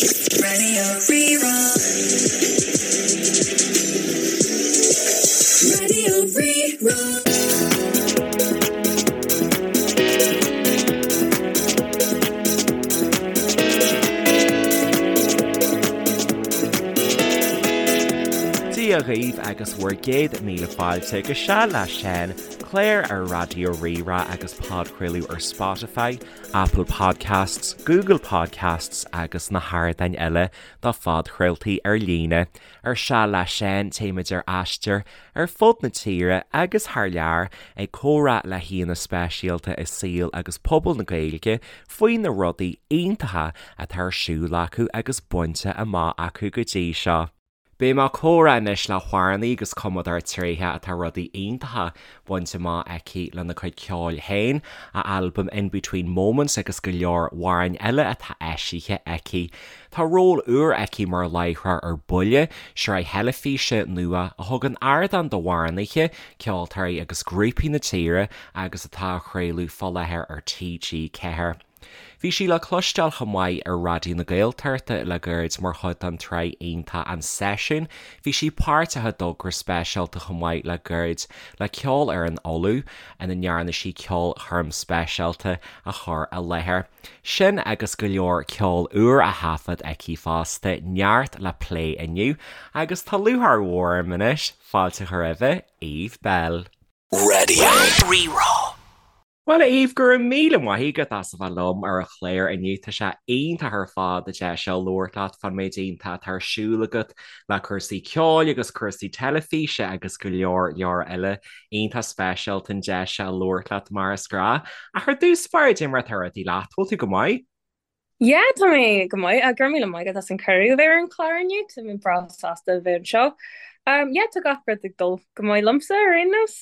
Radio Rí-Rá. Radio Rí-Rá. Dia dhaoibh agus bhur gcéad míle fáilte go Seal le Seán, clár ar Raidió Rí-Rá agus podchraoladh ar Spotify, Apple Podcasts, Google Podcasts agus na hardáin eile do phodchraoltaí ar líne. Ar Seal le Seán, téimid ar aistear ar fud na tíre agus thar lear ag comhrá le haíonna speisialta i saol agus pobal na Gaeilge faoi na rudaí iontacha atá ar siúl acu agus bainte amach acu go dtí seo. Beidh mé ag comhrá anois le hamhránaí agus cumadóir tréitheach atá rudaí iontacha bainte amach aici lena cuid ceoil féin, a albam In Between Moments agus go leor amhráin eile atá eisithe aici. Tá ról úr aici mar láithreoir ar Buile, sraith theilifíse nua a thugann ardán d'amhránaithe, ceoltóirí agus grúpaí na tíre agus atá á chraoladh fá láthair ar TG4. Bhí sí le cloisteáil chomh maith ar Raidió na Gaeltachta le gairid mar chuid den tsraith iontach An Seisiún. Bhí sí páirteach i dtogra speisialta chomh maith le gairid le Ceolfhoireann Uladh ina ndearna sí ceolchoirm speisialta a chur i láthair. Sin agus go leor ceol úr á thaifead aici fosta, neart le plé inniu agus tá lúcháir mhór orm anois fáilte a chur roimhe, Eve Belle. Radio Rí-Rá. Bhuel, a Eve, go raibh míle maith agat as a bheith liom ar an chlár inniu. Tá sé iontach ar fad an deis seo labhairt leat fán méid iontach atá ar siúl agat le cúrsaí ceoil agus cúrsaí teilifíse agus go leor leor eile. Iontach speisialta an deis seo labhairt leat mar is gnáth. Ach ar dtús báire, cad é mar atá rudaí leat, bhfuil tú go maith? Yeah, tá mé go maith. Go raibh míle maith agat as an cuireadh a bheith ar an chlár inniu. Tá mé breá sásta a bheith anseo. Um, yeah, tá gach rud ag dul go maith liomsa ar aon nós.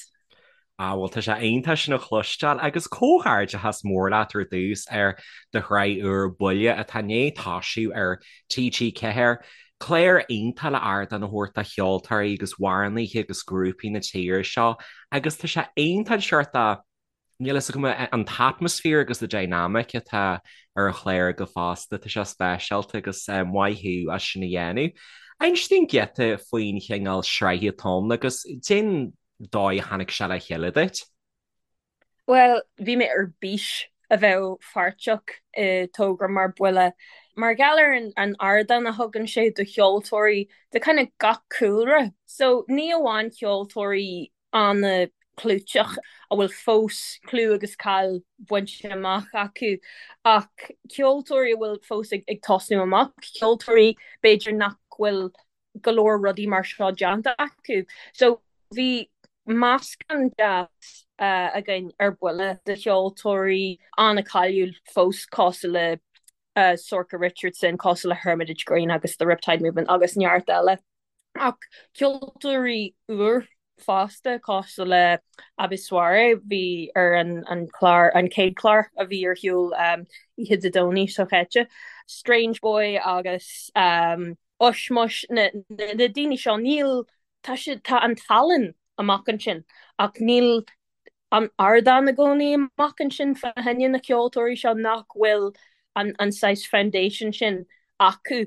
Ah, bhuel tá sé iontach sin a chloisteáil agus comhghairdeachas mór leat ar dtús ar do shraith úr Buile atá i ndiaidh toisiú ar TG4. Clár iontach le ardán a thabhairt do cheoltóirí agus amhránaithe agus grúpaí na tíre seo agus tá sé iontach an seort de Níl a fhios agam an t-atmaisféar agus the dynamic atá ar an chlár agaibh fosta, tá sé speisialta agus maith thú as sin a dhéanamh. Inis dúinn giota faoin chineál sraithe atá ann agus cén dóigh a tháinig sé le chéile duit? Bhuel, bhí mé ar bís a bheith pháirteach i togra mar Buile mar gheall ar an ardán a thugann sé do cheoltóirí de kind of gach cúlra. So ní amháin ceoltóirí an-chlúiteach a bhfuil fós clú agus cáil bainte amach acu ach ceoltóirí a bhfuil fós ag tosnú amach, ceoltóirí b'fhéidir nach bhfuil go leor rudaí mar seo déanta acu. So bhí meascán deas againn ar Buile de cheoltóirí an-cháiliúil fós cosúil le Sorcha Richardson, cosúil le Hermitage Green agus The Riptide Movement agus neart eile. Ach ceoltóirí úr fosta, cosúil le Abi Soiree, bhí ar an chlár, an chéad chlár a bhí ar shiúl oíche Dé Domhnaigh seo chaite, Strange Boy agus Ushmush, na daoine seo, níl, tá siad, tá an tallann amach ansin ach níl an ardán i gcónaí amach ansin fá choinne na ceoltóirí seo nach bhfuil an an saghas foundation sin acu.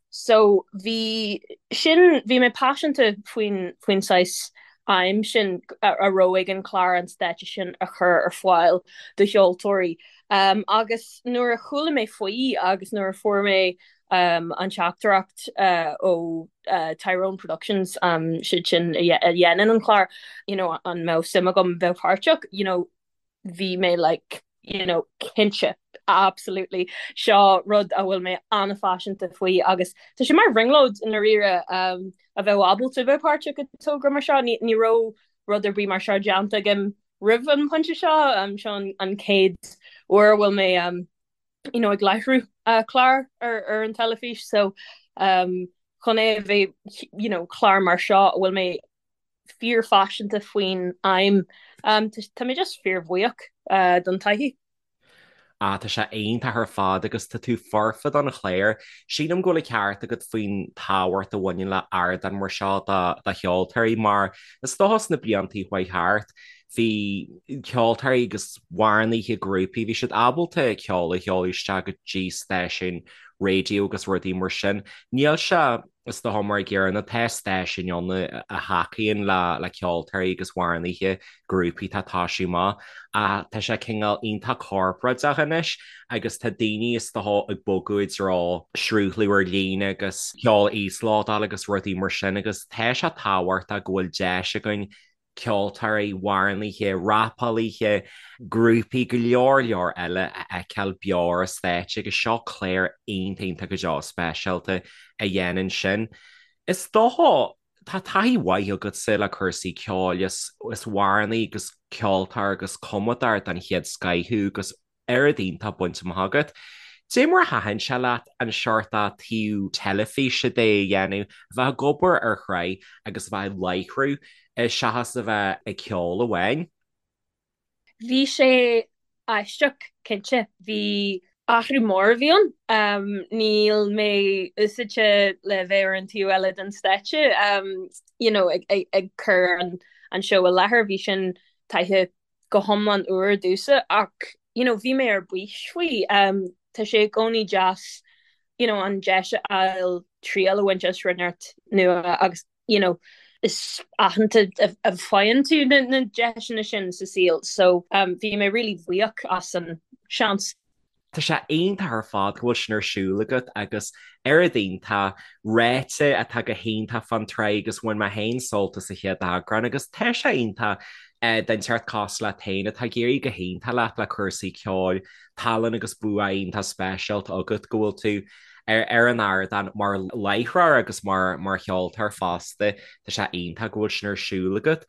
So bhí sin, bhí mé paiseanta faoin faoin saghas aidhm sin a raibh ag an chlár an stáitse sin a chur ar fáil do cheoltóirí. Agus nuair a chuala mé faoi agus nuair a fuair mé an teachtaireacht ó Tyrone Productions, siad sin a dhéanann an clár, you know, an mbeadh suim agam bheith páirteach, you know, bhí mé like, you know, cinnte, absolutely, seo rud a bhfuil mé an-phaiseanta faoi agus tá sé mar bhrionglóid i ndáiríre a bheith ábalta bheith páirteach i dtogra mar seo. Ní ní raibh rud ar bith mar seo déanta agam roimh an phointe seo, seo an chéad uair a bhfuil mé you know, ag láithriú clár ar, ar an teilifís so um, chun é a bheith you know, clár mar seo a bhfuil mé fíorphaiseanta faoin aidhm um, tá mé just fíorbhuíoch uh, don taithí. Ah, tá sé iontach ar fad agus tá tú foirfe don chlár. Sílim go bhfuil an ceart agat faoin tábhacht a bhaineann le ardán mar seo do, do cheoltóirí mar is dócha sna blianta a chuaigh thart. Bhí ceoltóirí agus amhránaithe grúpaí, bhí siad ábalta ceol a sheoladh isteach go dtí stáisiúin raidió agus rudaí mar sin. Níl sé, is dócha, mar an gcéanna, tá stáisiúin ann a thacaíonn le ceoltóirí agus amhránaithe grúpaí atá ag toisiú amach ach tá sé cineál iontach corparáideach anois agus tá daoine is dócha ag bogadh i dtreo sruthlú ar líne agus ceol a íoslódáil agus rudaí mar sin agus tá sé tábhachtach go bhfuil deis againn ceoltóirí, amhránaithe, rapálaithe, grúpaí, go leor leor eile a fheiceáil beo ar an stáitse agus seo clár iontach iontach go deo speisialta a dhéanann sin. Is dócha, tá taithí mhaith agatsa le cúrsaí ceoil, is amhránaí agus ceoltóir agus cumadóir den chéad scoith thú agus oiread iontach bainte amach agat. Dé mar a thaitin sé leat an seort taobh teilifíse de a dhéanamh, a bheith ag obair ar shraith agus a bheith ag láithriú seachas a bheith ag ceol amháin? Bhí sé aisteach, cinnte. Bhí athrú mór a bhí ann. Níl mé úsáidte le bheith ar an taobh eile den stáitse, you know, ag cur an seó i láthair. Bhí sin taithí go hiomlán úr domhsa ach you know bhí mé ar bís faoi. Tá sé i gcónaí deas you know an deis a fháil triail a bhaint as rud inteacht nua agus you know is aitheanta a faigheann tú na na deiseanna sin sa saol so bhí mé really buíoch as an seans. Tá sé iontach ar fad go bhfuil sin ar siúl agat agus oiread iontach ráite atá go hiontach fán tsraith agus bhain mé féin sult as an chéad eagrán agus tá sé iontach duine inteacht cosúil leat féin atá ag éirí go hiontach leat le cúrsaí ceoil, tallann agus bua iontach speisialta agat go bhfuil tú ar an ardán mar láithreoir agus mar cheoltóir fosta. Tá sé iontach go bhfuil sin ar siúl agat.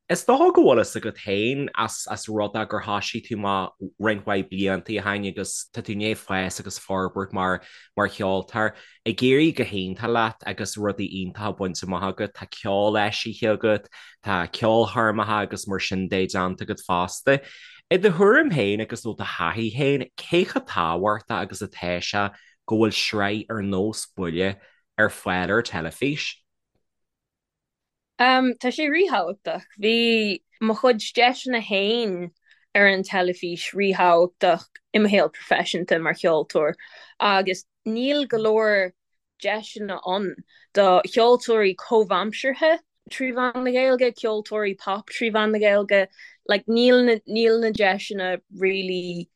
Is dócha go bhfuil fhios agat féin as rud é gur thoisigh tú amach roinnt mhaith blianta ó shin agus tá tú i ndiaidh fás agus forbairt mar mar cheoltóir. Ag éirí go hiontach leat agus rudaí iontacha bainte amach agat, tá ceol eisithe agat, tá ceolchoirmeacha agus mar sin de déanta agat fosta. I do thuairim féin agus ó do thaithí féin, cé chomh tábhachtach agus atá sé go bhfuil sraith ar nós Buile ar fáil ar teilifís? Tá sé ríthábhachtach. Bhí mo chuid deiseanna féin ar an teilifís ríthábhachtach i mo shaol proifisiúnta mar cheoltóir agus níl go leor deiseanna ann do cheoltóirí comhaimseartha trí mheán na Gaeilge, ceoltóirí pop trí mheán na Gaeilge. Like níl na, níl na deiseanna really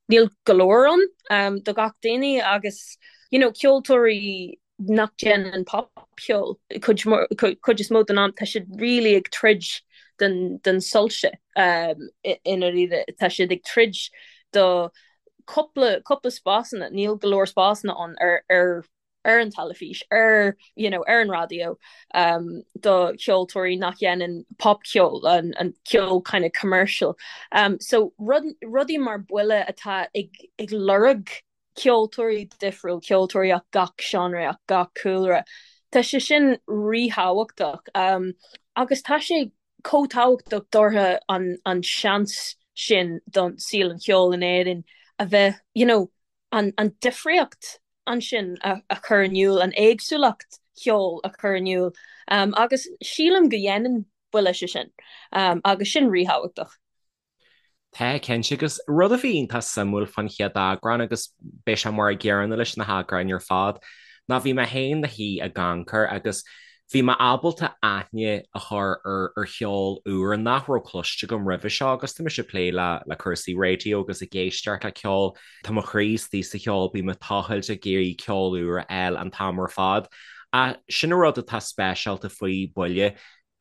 níl go leor ann do gach duine agus you know ceoltóirí nach déanann popcheol cuid cuid is mó den am tá siad really ag troid den den soilse i ndáiríre tá siad ag troid do cúpla cúpla spásanna níl go leor spásanna ann ar ar ar an teilifís, ar you know ar an raidió um do cheoltóirí nach dhéanann popcheol, an an ceol kind of commercial. Um so rud rudaí mar Buile atá ag ag lorg ceoltóirí difriúil, ceoltóirí as gach seánra, as gach cúlra. Tá sé sin ríthábhachtach um agus tá sé chomh tábhachtach dóibh an an seans sin don saol an cheoil in Éirinn a bheith you know an an difríocht ansin a chur in iúl, an éagsúlacht cheoil a chur in iúl agus sílim go dhéanann Buile sé sin agus sin ríthábhachtach. Tá, cinnte, agus rud a bhí iontach suimiúil fán chéad eagrán, agus beidh sé mar an gcéanna leis na heagráin ar fad, ná bhí mé féin 'mo shuí ag amharc agus bhí mé ábalta aithne a chur ar cheol úr nach raibh cloiste agam roimhe seo agus tá mise ag plé le cúrsaí raidió agus ag éisteacht le ceol, tá mo chroí istigh sa cheol, bím ag tochailt ag iarraidh ceol úr a fháil an t-am ar fad. Ach sin an rud atá speisialta faoi Buile,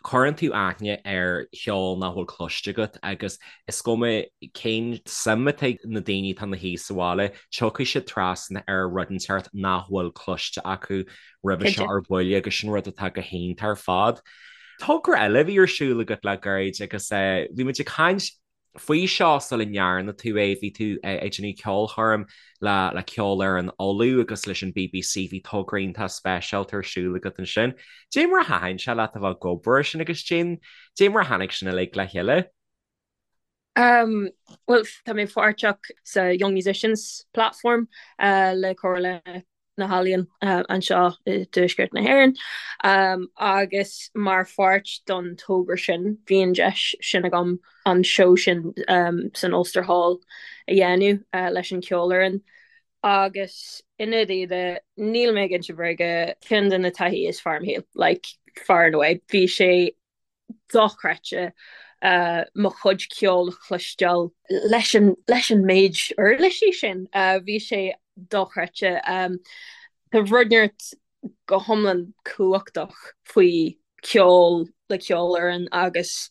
cuireann tú aithne ar cheol nach bhfuil cloiste agat agus is cuma cén suim atá ag na daoine atá ina shuí sa bhaile, tiocfaidh siad trasna ar rud inteacht nach bhfuil cloiste acu roimhe seo ar Buile agus sin rud atá go hiontach ar fad. Togra eile a bhí ar siúl agat le gairid agus bhí muid ag caint faoi seo sula ndearna tú é, bhí tú ag déanamh ceolchoirm le le Ceolfhoireann Uladh agus leis an BBC, bhí togra iontach speisialta ar siúl agat ansin. Dé mar a thaitin sé leat a bheith ag obair ar sin agus dé dé mar a tháinig sin uilig le chéile? Um, well, tá mé páirteach sa Young Musicians Platform uh, le Comhairle. na hEalaíon anseo i dTuaisceart na hÉireann agus mar pháirt don togra sin bhí an deis sin agam an seó sin san Ulster Hall a dhéanamh leis an cheolfhoireann agus i ndáiríre níl mé ag inse bréige ceann de na taithí is fearr i mo shaol like far and away bhí sé dochreidte mo chuid ceoil a chloisteáil leis an leis an méid uirlisí sin. Bhí sé dochreidte. Tá rud inteacht go hiomlán cumhachtach faoi ceol le ceolfhoireann agus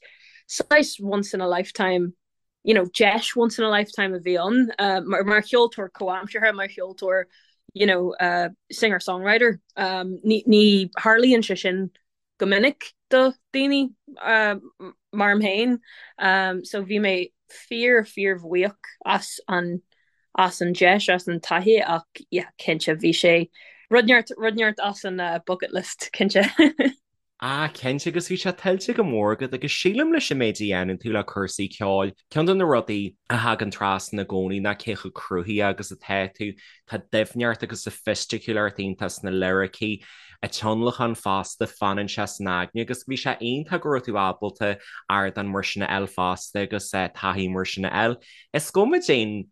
saghas once in a lifetime you know, deis once in a lifetime a bhí ann mar mar cheoltóir comhaimseartha, mar cheoltóir you know, uh, singer-songwriter. Um, ní, ní tharlaíonn sé sin go minic do daoine mar mé féin so bhí mé fíor fíor bhuíoch as an as an deis as an taithí ach yeah cinnte bhí sé rud inteacht rud inteacht as an bucket list cinnte. Ah cinnte agus bhí sé tuillte go mór agat agus sílim leis an méid a dhéanann tú le cúrsaí ceoil, ceann de na rudaí a thagann trasna i gcónaí ná cé chomh cruthaithe agus atá tú, tá doimhneacht agus soifisticiúlacht iontach sna liricí, an tionlacan fosta, fanann sé san aigne agus bhí sé iontach go raibh tú ábalta ardán mar sin a fháil fosta agus taithí mar sin a fháil. Is cuma cén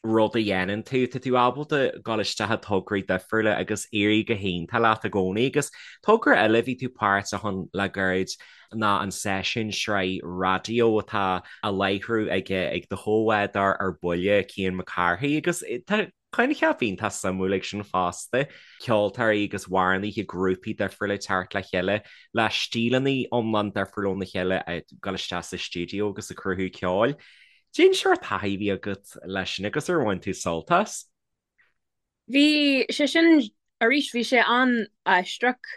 rud a dhéanann tú, tá tú ábalta dul isteach i tograí difriúla agus éirí go hiontach leat i gcónaí agus togra eile a bhí tú páirteach ann le gairid ná an seisiún sraith raidió atá á láithriú ag ag do chomhbhádóir ar buile, Cian Mac Cárthaigh agus tá coincheap iontach suimiúil ag sin fosta, ceoltóirí agus amhránaithe grúpaí difriúla ag teacht le chéile le stíleanna iomlán difriúil óna chéile ag dul isteach sa stiúideo agus ag cruthú ceoil. Cén sórt taithí a bhí agat leis sin agus ar bhain tú sult as? Bhí sé sin, arís, bhí sé an-aisteach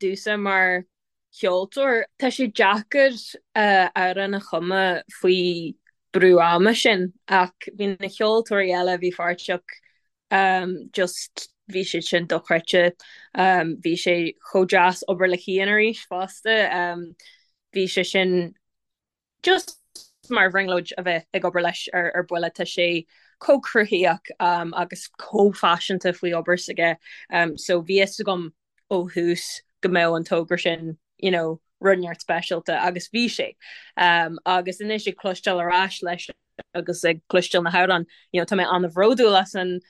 domhsa mar cheoltóir. Tá sé deacair amhrán a chumadh faoi brú ama sin ach bhí na ceoltóirí eile a bhí pháirteach just bhí siad sin dochreidte. Bhí sé chomh deas obair le Cian arís fosta. Bhí sé sin just mar bhrionglóid a bheith ag obair leis ar ar buile, tá sé chomh cruthaitheach agus chomh paiseanta faoi obair s'aige so bhí fhios agam ó thús go mbeadh an togra sin you know rud inteacht speisialta agus bhí sé. Agus anois ag cloisteáil ar ais leis agus ag cloisteáil na hamhráin you know tá mé an-bhródúil as an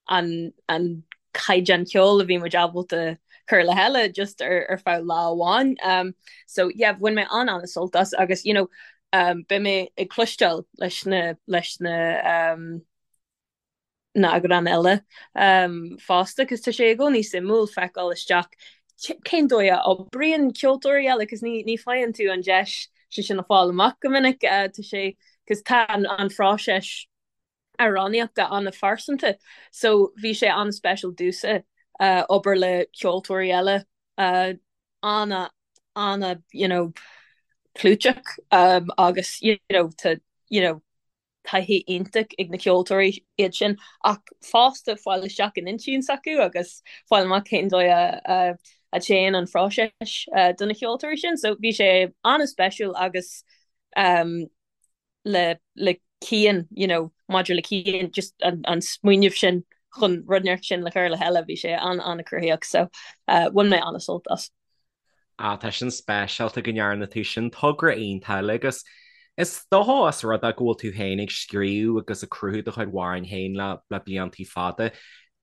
an an caighdeán ceoil a bhí muid ábalta cur le chéile just ar ar feadh lá amháin. Um, so yeah, bhain mé an an-sult as agus you know, um, beidh mé ag cloisteáil leis na leis na um, na heagráin eile um, fosta, cos tá sé i gcónaí suimiúil feiceáil isteach cén dóigh a oibríonn ceoltóirí eile, cos ní ní faigheann tú an deis sé sin a fáil amach go minic, uh, tá sé cos tá an, an phróiseas amhránaíochta an-phearsanta so bhí sé an-speisialta domhsa obair le ceoltóirí eile ana ana you know clúiteach agus you know tá you know taithí iontach ag na ceoltóirí iad sin ach fosta fáil isteach in intinn s'acu agus fáil amach cén dóigh a a téann an phróiseas do na ceoltóirí sin so bhí sé an-speisialta agus um, le le Cian, you know, maidir le Cian, just an an smaoineamh sin chun rud inteacht sin le cur le chéile, bhí sé an-an-cruthaitheach so uh, bhain mé an-sult as. Ah, tá sin speisialta go ndearna tú sin togra iontach eile agus is dócha os rud é go bhfuil tú féin ag scríobh agus ag cruthú do chuid amhráin féin le le bliantaí fada.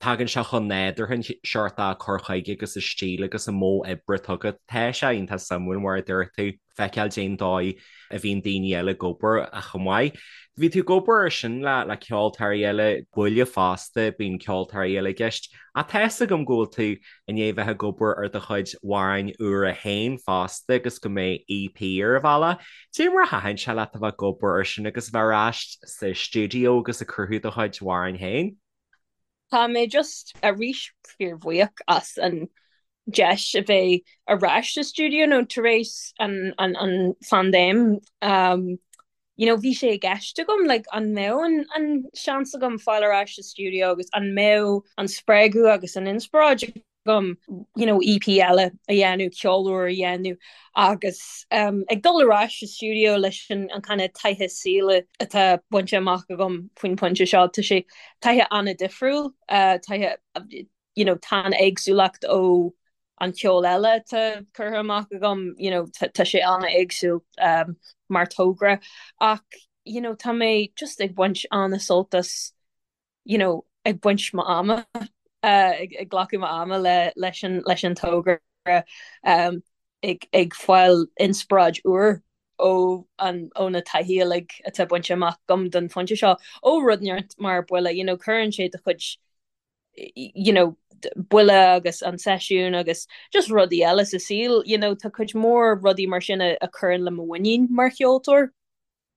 Tagann sé chomh nádúrtha an seort cur chuige agus an stíl agus an modh oibre atá agat. Tá sé iontach suimiúil mar a dúirt tú. feiceáil cén dóigh a bhíonn daoine eile ag obair chomh maith. Bhí tú ag obair ar sin le le ceoltóirí eile, buile fosta, bíonn ceoltóirí eile i gceist. Ach tá fhios agam go bhfuil tú i ndiaidh bheith ag obair ar do chuid amhráin úra féin fosta agus go mbeidh EP ar an bhealach. Cé mar a thaitin sé leat a bheith ag obair ar sin agus a bheith ar ais sa stiúideo agus ag cruthú do chuid amhráin féin? Tá mé just arís fíorbhuíoch as an deis a bheith ar ais sa stiúideo nó tar éis an an an phaindéim um, you know, bhí sé i gceist agam like, an mbeadh an, an seans agam fáil ar ais sa stiúideo agus an mbeadh an spreagadh agus an inspioráid agam you know, EP eile a dhéanamh, ceol úr a dhéanamh agus um, ag dul ar ais sa stiúideo leis an, an kind of taithí saoil atá bainte amach agam faoin pointe seo, tá sé taithí an-difriúil, uh, taithí. you know, tá an éagsúlacht ó an ceol eile atá curtha amach agam, you know, tá sé an-éagsúil um, mar togra ach you know, tá mé just ag baint an-sult as you know, ag baint m'ama, uh, ag, ag glacadh m'ama le, leis an, leis an togra um, ag, ag fáil inspioráid úr ó an, ó na taithí uilig atá bainte amach agam don phointe seo, ó rud inteacht mar Buile, you know, cuireann sé do chuid you know, Buile agus an seisiún agus just rudaí eile sa saol, you know, tá cuid mhór rudaí mar sin a, a chuireann le mo mhuinín mar cheoltóir.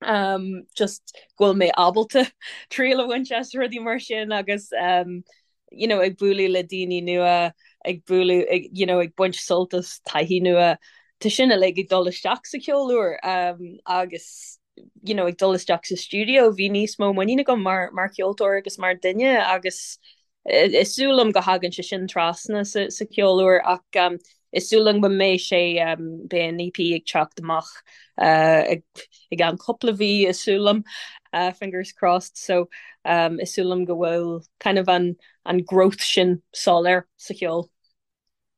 Um, just go bhfuil mé ábalta triail a bhaint as rudaí mar sin agus um, you know, ag bualadh le daoine nua, ag bualadh, ag, you know, ag baint sult as taithí nua. Tá sin uilig ag dul isteach sa cheol úr um, agus you know, ag dul isteach sa stiúideo, bhí níos mó muinín agam mar, mar cheoltóir agus mar duine agus is dóigh liom go thagann sé sin trasna sa, sa cheol úr ach um, is dóigh liom go mbeidh sé um, beidh an EP ag teacht amach uh, ag, i gceann cúpla mhí is dóigh liom uh, fingers crossed so um, is dóigh liom go bhfuil kind of an, an growth sin soiléir sa cheol.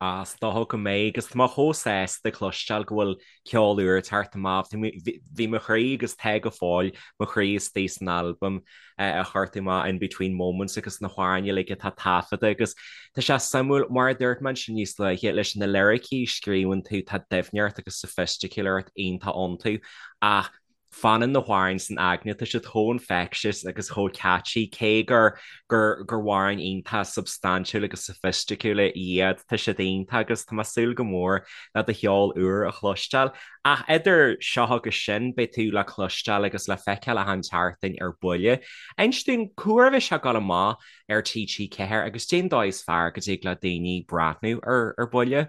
Ah, is dócha go mbeidh, agus tá mé chomh sásta cloisteáil go bhfuil ceol úr ag teacht amach. Bhí mo chroí agus tá go fóill mo chroí istigh san albam a chuir tú amach In Between Moments agus na hamhráin uilig atá taifeadta agus tá sé suimiúil, mar a dúirt mé ansin níos luaithe, leis na liricí a scríobhann tú, tá doimhneacht agus soifisticiúlacht iontach iontu ach Fanann na hamhráin san aigne, tá siad chomh infectious agus chomh catchy, cé gur gur gur amhráin iontach substaintiúil agus soifisticiúla iad, tá siad iontach agus tá mé ag súil go mór le do cheol úr a chloisteáil. Ach idir seo agus sin, beidh tú le cloisteáil agus le feiceáil achan tseachtain ar Buile. Inis dúinn, cá huair a bheidh sé ag dul amach ar TG4 agus cén dóigh is fearr go dtig le daoine breathnú ar ar Buile?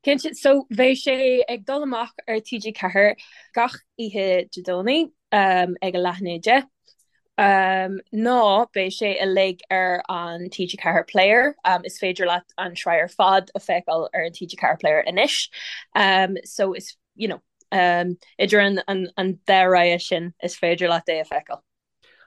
Cinnte, so bheidh sé ag dul amach ar TG4 gach oíche Dé Domhnaigh ag a leath i ndiaidh a 10, nó beidh sé uilig ar an TG4 Player, is féidir leat an tsraith ar fad a feiceáil ar an TG4 Player anois. So is, you know, idir an dá rogha sin is féidir leat é a feiceáil.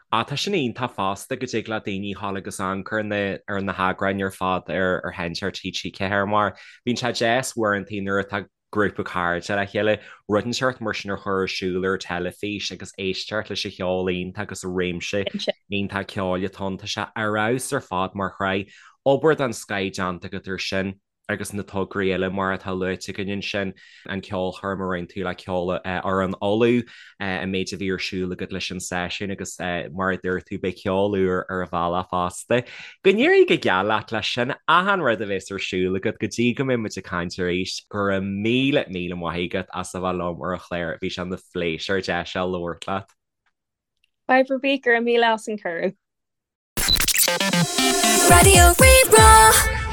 Ah, tá sin iontach fosta go dtig le daoine dhul agus amharc ar na ar na heagráin ar fad ar ar sheinnteoir TG4 mar bíonn sé deas uaireanta nuair atá grúpa cairde le chéile rud inteacht mar sin a chur ar siúl ar teilifís agus éisteacht leis an cheol iontach agus an réimse iontach ceoil atá ann. Tá sé ar fheabhas ar fad mar shraith. Obair den scoth déanta agat ar sin. agus na tograí eile mar atá luaite againn ansin, an ceolchoirm a rinne tú le Ceolfhoireann Uladh, an méid a bhí ar siúl agat leis an seisiún agus mar a dúirt tú, beidh ceol úr ar an bhealach fosta. Go n-éirí go geal leat leis sin, achan rud a bheas ar siúl agat go dtí go mbeidh muid ag caint arís. Go raibh míle, míle maith agat as a bheith liom ar an chlár, bhí sé ina phléisiúr deis a labhairt leat. Fadhb ar bith, go raibh míle as an cuireadh. Raidió Rí-Rá.